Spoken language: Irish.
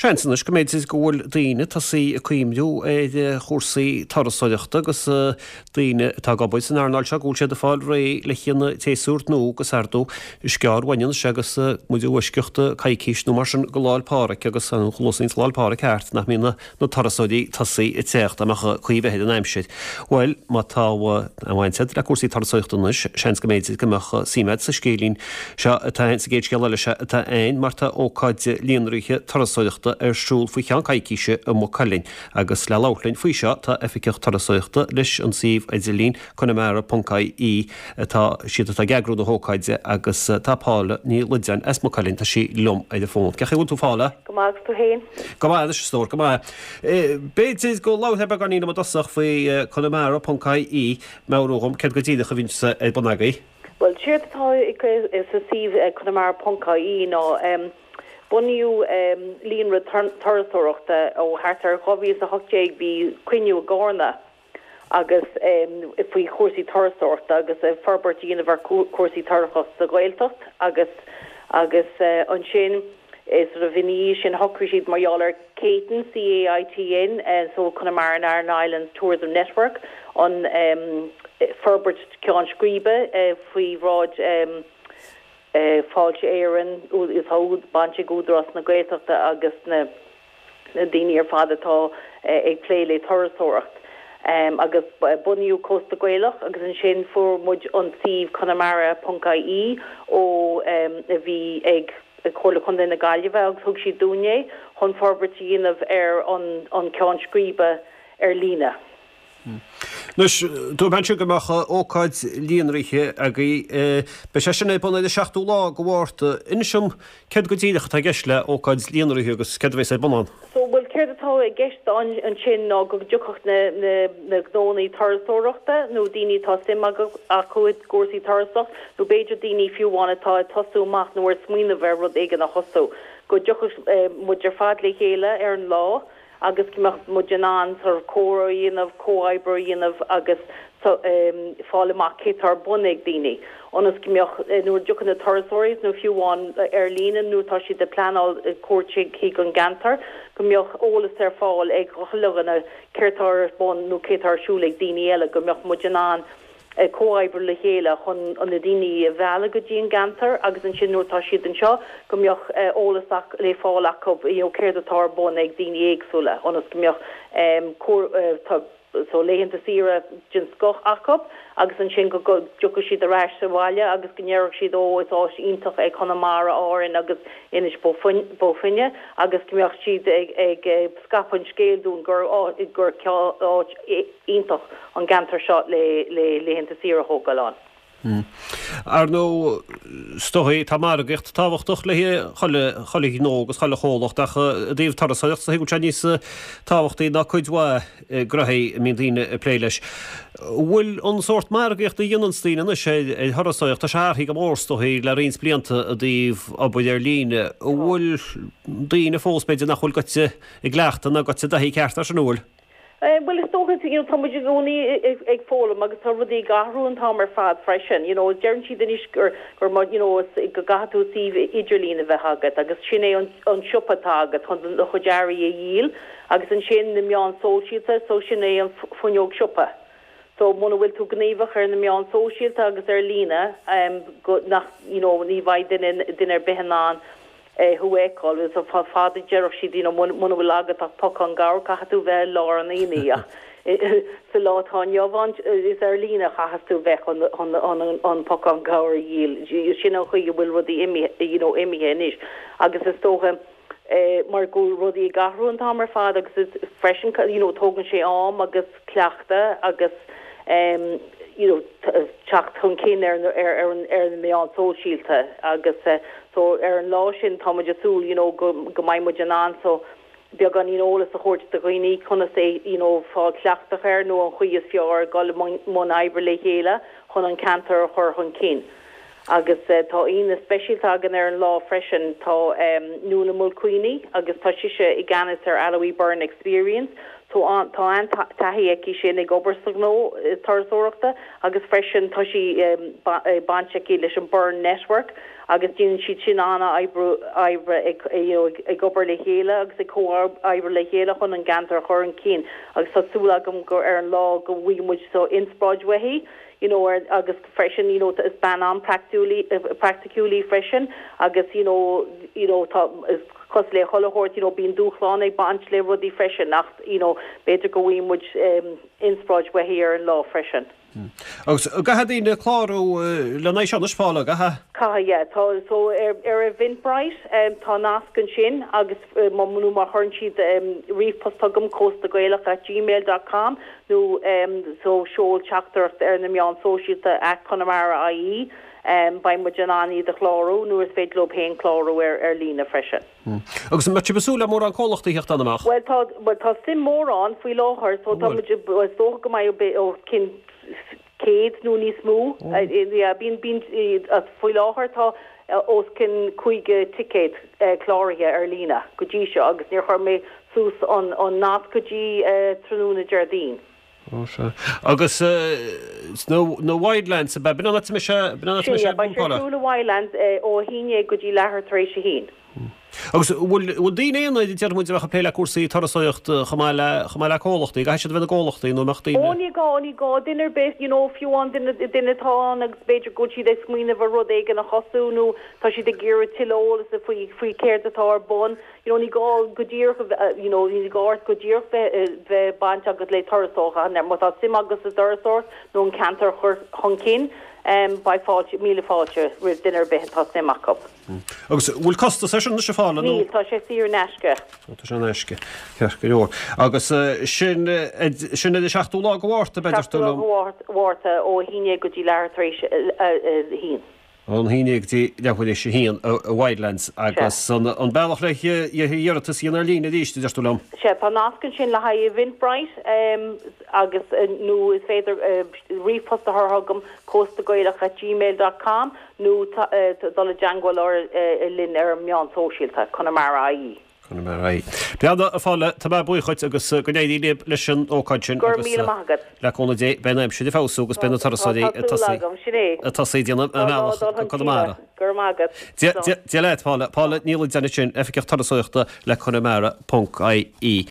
Seans anois go mb'fhéidir go bhfuil daoine tosaithe ag cuimhniú ar chúrsaí turasóireachta agus daoine atá ag obair san earnáil seo go bhfuil siad ag fáil réidh le haghaidh an tséasúir nua agus ar ndóigh is gearr uainn anois agus muid i bhfoisceacht coicís nó mar sin go Lá'l Pádraig agus an chluasaíonn Lá'l Pádraig thart nach mbíonn na turasóirí tosaithe ag teacht dá mbeadh caoi ar bith ar an aimsir. Bhuel, má tá aon bhaint agat le cúrsaí turasóireachta anois, seans go mb'fhéidir go mbeadh suim agat sa scéilín seo atá sa gcéad scéal eile seo atá ann mar tá ócáid líonraithe turasóireachta ar siúl faoi cheann coicíse i Maigh Cuilinn agus le labhairt linn faoi seo tá Oifigeach Turasóireachta leis an suíomh idirlín conamara.ie atá siad atá ag eagrú na hócáide agus tá Paula Ní Loideáin as Maigh Cuilinn, tá sí liom ar an bhfón. Cén chaoi a bhfuil tú Paula? Go maith agus tú féin? Go maith anois a stór, go maith. B'fhéidir go labharfá beagáinín liom i dtosach faoi conamara.ie, meabhrú dhom céard go díreach a bhíonns ar bun agaibh. Bhuel, séard atá sa suíomh conamara.ie ná bunaíodh líonra turasóireachta ó thart ar 2018, bhí cruinniú i gCárna agus faoi chúrsaí turasóireachta agus forbairt a dhéanamh ar chúrsaí turasóireachta sa Ghaeltacht agus agus ansin sort of ina dhiaidh sin shocraigh siad mar gheall ar CAITN, C-A-I-T-N, so Connemara and Aran Islands Tourism Network, an forbairt ceann scríbe faoi bhráid Fáilte Éireann, tá baint ag Údarás na Gaeltachta agus na. na daoine ar fad atá ag plé le turasóireacht. Agus bunaíodh Cósta Gaelach agus ansin fuair muid an suíomh conamara ponc ie ó a bhí ag Comhairle Contae na Gaillimhe agus thug siad dúinn é chun forbairt a dhéanamh ar an ceann scríbe ar líne. Anois, dúirt mé ansin go mbeadh ócáid líonraithe agaibh. Beidh sé sin ar bun ar an seachtú lá de Mhárta. Inis dom céard go díreach atá i gceist le ócáid líonraithe agus céard a bheas ar bun ann. So, bhuel, céard atá i gceist ansin ná go dtiocfadh na, na, na gnónnaí turasóireachta nó daoine atá suim acu i gcúrsaí turasóireachta nó b'fhéidir daoine fiú amháin atá ag tosú amach nó ar smaoineamh ar rud éigin a thosú, go dtiocfadh muid ar fad le chéile ar an lá. agus go mbeadh muid in ann sort of comhrá a dhéanamh, comhoibriú a dhéanamh agus fáil amach cé tá ar bun ag daoine, ionas go mbeadh, nuair a dtiocfaidh na turasóirí nó fiú amháin ar líne nuair atá siad ag pleanáil cuairt chuig an gceantar, go mbeadh eolas ar fáil ag chuile dhuine céard tá ar bun nó cé tá ar siúl ag daoine eile, go mbeadh muid in ann. comhoibriú le chéile chun na daoine a mhealladh go dtí an gceantar agus ansin nuair atá siad anseo go mbeadh eolas le fáil acu you know céard atá ar bun ag daoine éagsúla ionas go mbeadh so laethanta saoire den scoth acu agus ansin go dtiocfaidh siad ar ais abhaile agus go ndéarfadh siad ó is áit iontach é Conamara, Árainn agus Inis Bó Finne agus go mbeadh siad ag scaipeadh an scéil dúinn gur gur áit iontach an gceantar seo le laethanta saoire a thógáil ann. Ar ndóigh, is dóigh, tá margaíocht tábhachtach le chuile chuile ghnó agus chuile chomhlacht ach i dtaobh turasóireachta is dóigh go bhfuil sé níos tábhachtaí ná cuid mhaith gnoithí a mbíonn daoine ag plé leis. Bhfuil an sórt margaíochta a dhéananns daoine anois ar thurasóireacht, tá sé athraithe go mór is dóigh le roinnt blianta i dtaobh obair ar líne. An bhfuil daoine fós b'fhéidir nach bhfuil goite i gcleachtadh ná goite i dtaithí ceart air sin, an bhfuil? Bhuel, is dócha, you know, tá muid i gcónaí ag foghlaim agus tá rudaí ag athrú an t-am ar fad freisin, you know. Deireann siad anois gur, gur má, you know, go gcaithfidh tú suíomh idirlín a bheith agat agus sin é an, an siopa atá agat chun do chuid earraí a dhíol agus ansin na meáin sóisialta, so sin é an fuinneog siopa. So muna bhfuil tú gníomhach ar na meáin sóisialta agus ar líne, go, nach, you know, ní bheidh duine, duine ar bith in ann thú a fheiceáil. Is fada a déarfadh siad, you know, muna bhfuil agat ach pocán gabhair, caithfidh tú bheith i lár an aonaigh ach sa lá atá inniu ann, is ar líne a chaithfeas tú bheith chun an pocán gabhair a dhíol. Sin an chaoi a bhfuil rudaí imithe, you know, imithe anois agus is dócha mar go bhfuil rudaí ag athrú an t-am ar fad agus is freisin, you know, tógann sé am agus cleachtadh agus you know teacht chun cinn ar ar ar na meáin sóisialta agus so ar an lá sin tá muid ag súil you know go go mbeidh muid in ann so beagáinín eolas a thabhairt do dhaoine conas é you know fáil cleachtach air nó an chaoi is fearr dul i mbun oibre le chéile chun an ceantar a chur chun cinn. Agus tá aíonna speisialta againn ar an lá freisin. Tá Nuala Mulqueeney agus tá sise i gceannas ar Aloe Byrne Experience. Tá an-taithí aici sin ag obair sa ghnó turasóireachta agus freisin tá sí baint aici leis an Burren Network. Agus déanann siad sin an-oibre ag you know ag obair le chéile agus ag comhoibriú le chéile chun an gceantar a chur chun cinn agus tá súil agam gur ar an lá go bhfaighidh muid so inspioráid uaithi you know ar agus freisin you know is bean an-praiticiúil í praiticiúil í freisin agus you know you know tá is cosúil le chuile shórt you know bíonn dúshlán ag baint le rudaí freisin ach you know b'fhéidir go bhfaighidh muid inspioráid uaithi ar an lá freisin. Agus caithfidh daoine clárú lena aghaidh seo anois, Paula, caithfidh? Caithfidh, yeah. Tá, so ar ar Eventbrite tá nasc ansin agus má nó má chuireann siad ríomhphost chugam, cóstagaelach at gmail dot com nó so seol teachtaireacht ar na meáin sóisialta at Conamara IE, beidh muid in ann iad a chlárú nó is féidir leo féin clárú ar ar líne freisin. Agus an mbeidh sibh ag súil le mórán comhlachtaí a theacht ann, an mbeadh? Bhuel tá, bhuel tá suim mór ann faoi láthair so tá muid, bhuel is dócha go mbeidh os cionn 100 nó níos mó. Yeah, bíonn, bíonn, faoi láthair tá os cionn 50 ticéad cláraithe ar líne go dtí seo agus níor chuir mé suas an, an nasc go dtí tráthnóna Déardaoin. Ó sea. Agus sna Wildlands ab ea? B'in an áit a mbeidh sé, b'in an áit a mbeidh sé ar bun, Paula? Beidh sé ar siúl i Wildlands ó 11 go dtí leathuair tar éis a haon. Agus bhfuil, bhfuil daoine aonair, déarfaidh muid, a bheadh ag plé le cúrsaí turasóireachta chomh maith le, chomh maith le comhlachtaí, caithfidh siad a bheith ina gcomhlachtaí nó an mbeadh daoine. Ó ní gá, ní gá duine ar bith, you know, fiú amháin duine, duine atá ann agus b'fhéidir go bhfuil siad ag smaoineamh ar rud éigin a thosú nó tá siad ag iarraidh tuilleadh eolas faoi, faoi céard atá ar bun. You know, ní gá go díreach a bheith, you know, ní gá ort go díreach bheith, bheith baint agat le turasóireacht ach má tá suim agat sa dturasóireacht nó an ceantar a chur chun cinn, em, beidh fáilte, míle fáilte roimh duine ar bith atá suim acu. Agus bhfuil costas air sin anois a Phaula nó? Níl, tá sé saor in aisce. Ó, tá sé in aisce. Ceart go leor. Agus sin, sin ar an seachtú lá de Mhárta, b'fhéidir, Seachtú lá de Mhárta ó 11 go dtí leathuair tar éis a haon. Ón 11 go dtí leathuair tar éis a haon i Wildlands agus an bealach le hiarratas a dhéanamh ar líne arís, a deir tú liom? Sea, tá nasc ansin le haghaidh Eventbrite agus nó is féidir ríomhphost a chur chugam, cóstagaelach at gmail dot com nó dul i dteangmháil linn ar an meán sóisialta, Conamara IE. Conamara. Bhuel, a Phaula, tá mé buíoch dhuit agus go n-éirí libh leis an ócáid sin Go raibh míle maith agat. Le cúnamh Dé, beidh an aimsir ag feabhsú agus beidh na turasóirí ag tosaí ag tosaí ag déanamh a mbealach go Conamara. Go raibh maith agat. Dia leat, Paula. Paula Ní Loideáin ansin, Oifigeach Turasóireachta le Conamara ponc IE.